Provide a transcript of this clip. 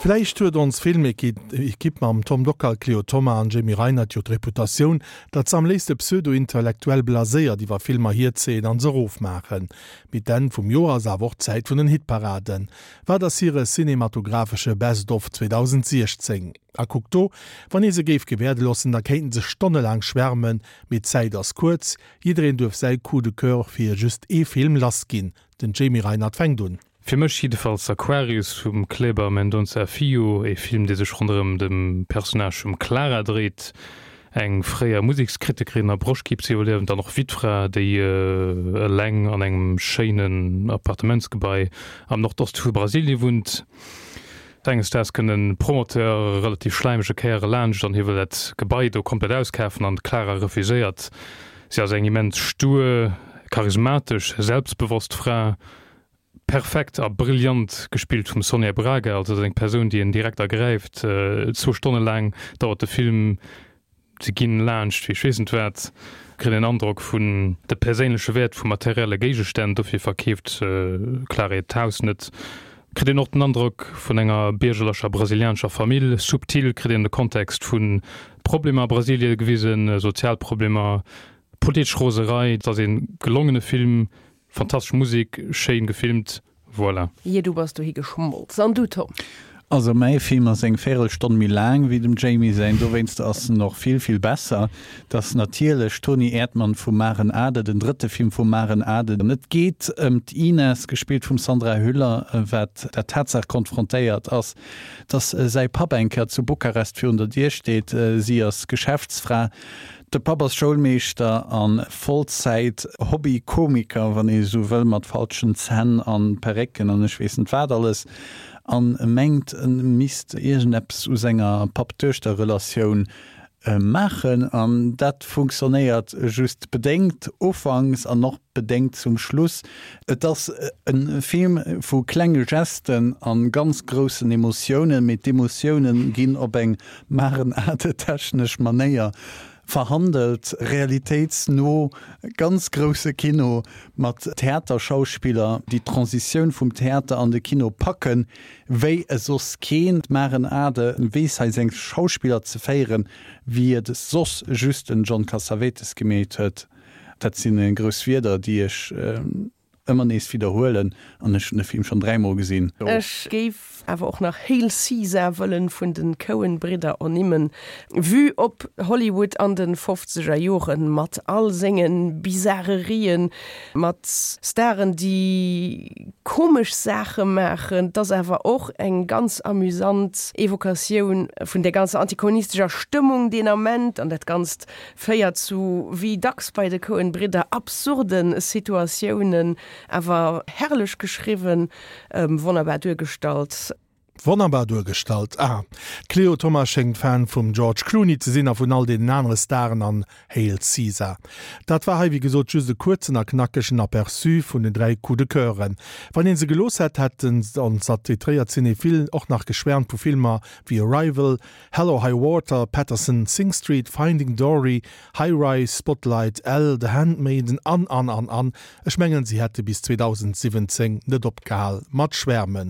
Vläicht huet ons Filmequipe mam Tom Dockal, Cléo Thoma an Jamie Reinert jo d'Reputatioun, datt se am léifste pseudo-intellektuell blaséiert iwwer Filmer hierzéien an se erofmaachen. Mee d'Enn vum Joer ass awer och d'Zäit vun den Hitparaden. Wat ass hire cinematographesche Best of 2016? A kuckt do, wann ee se géif gewäerde loossen, da kéinten se stonnelaang schwärmen, mee d'Zäit ass kuerz, jiddereen duerf säi Coup de coeur fir just ee Film lassginn. Den Jamie Reinert fänkt un. Fir mech jiddefalls Aquarius vum Kleber Mendonça Filho, ee Film dee sech ronderëm dem Personnage vum Clara dréit, eng fréier Musekskritikerin a Broschtkriibsiwwerliewend an och Wittfra, déi eleng an engem schéinen Appartementsgebai am Nordoste vu Brasilie wunnt. Enges Daags kënnt e Promoteur, e relativ schläimege Kéier, elaanscht an hie wëll dat Gebai do komplett auskafen an d'Clara refuséiert. Si ass eng immens stur, charismatesch, selbstbewosst Fra, Perfekt a brillant gespillt vum Sonia Braga, also dat ass eng Persoun déi een direkt ergräift. Zwou Stonne laang dauert de Film, se ginn laanscht wéi ech weess net wat, kritt een Androck vun de perséinleche Wäert vu materielle Géigestänn, dofir verkeeft d'Clara hiert Haus net. Kritt een och den Androck vun enger biergerlecher brasilianescher Famill, subtil kritt een de Kontext vu Problemer a Brasilie gewisen, sozial Problemer, politesch Roserei. Et ass ee gelongene Film, Fantastesch Musik, schéin gefilmt, voilà. Jee, du bass dohi geschmolz. An du, Tom? Also mäi Film ass eng Véirelstonn méi laang wéi dem Jamie säin, dowéinst ass en och vill, vill besser. Et ass natierlech Toni Erdmann vum Maren Ade, den drëtte Film vum Maren Ade. An et geet ëm d'Ines, gespillt vum Sandra Hüller, wat der Tatsaach konfrontéiert ass, dass säi Papp eng Kéier zu Bukarest virun der Dier steet. Si ass Geschäftsfra. De Papp ass Schoulmeeschter a Vollzäit Hobby-Komiker, wann ee sou wëll, mat falschen Zänn an Perrécken an ech weess net wat alles, an mengt e misst iergendeppes u senger Papp-Duechter-Relatioun maachen. An dat funktionéiert just bedéngt ufanks an och bedéngt zum Schluss. Et ass e Film vu klenge Gesten a ganz groussen Emotiounen, mee d'Emotiounen ginn op eng Marenatetechnesch Manéier verhandelt, realitéitsno, ganz grousse Kino mat Theaterschauspiller, déi d'Transitioun vum Theater an de Kino packen, wéi e soss keen. D'Maren Ade weess hei seng Schauspiller ze féieren, wéi et soss just den John Cassavetes gemeet huet. Dat si grouss Wierder, déi ech ëmmer nees widderhuelen an ech hunn de Film schonn dräimol gesinn. Ech géif awer och nach Hail Caesar wëllen vun den Coen Bridder ernimmen. Vue op Hollywood an den fofzeger Joren mat all sengen Bizarrerien, mat Staren déi komesch Saache maachen. Et ass awer och eng ganz amüsant Evokatioun vun der ganzer antikommunistescher Stëmmung deen Ament an dat Ganzt Féiert zu, wéi dacks bei de Coen Bridder, absurde Situatiounen, awer herrlech geschriwwen, wonnerbar duergestallt. Wonnerbar duergestallt, ah. D'Cléo Thomas schéngt Fan vum George Clooney ze sinn a vun all deenen anere Staren an Hail Caesar. Dat war hei wéi gesot just e kuerzen a knackegen Aperçu vun den 3 Coups de Coeuren. Wann een se gelooss hätt, hätten ons attitréiert Cinéphilen och nach geschwärmt vu Filmer wéi Arrival, Hell or High Water, Paterson, Sing Street, Finding Dory, High Rise, Spotlight, Elle, The Handmaiden an an an an. Ech mengen si hätte bis 2017 net opgehal mat schwärmen.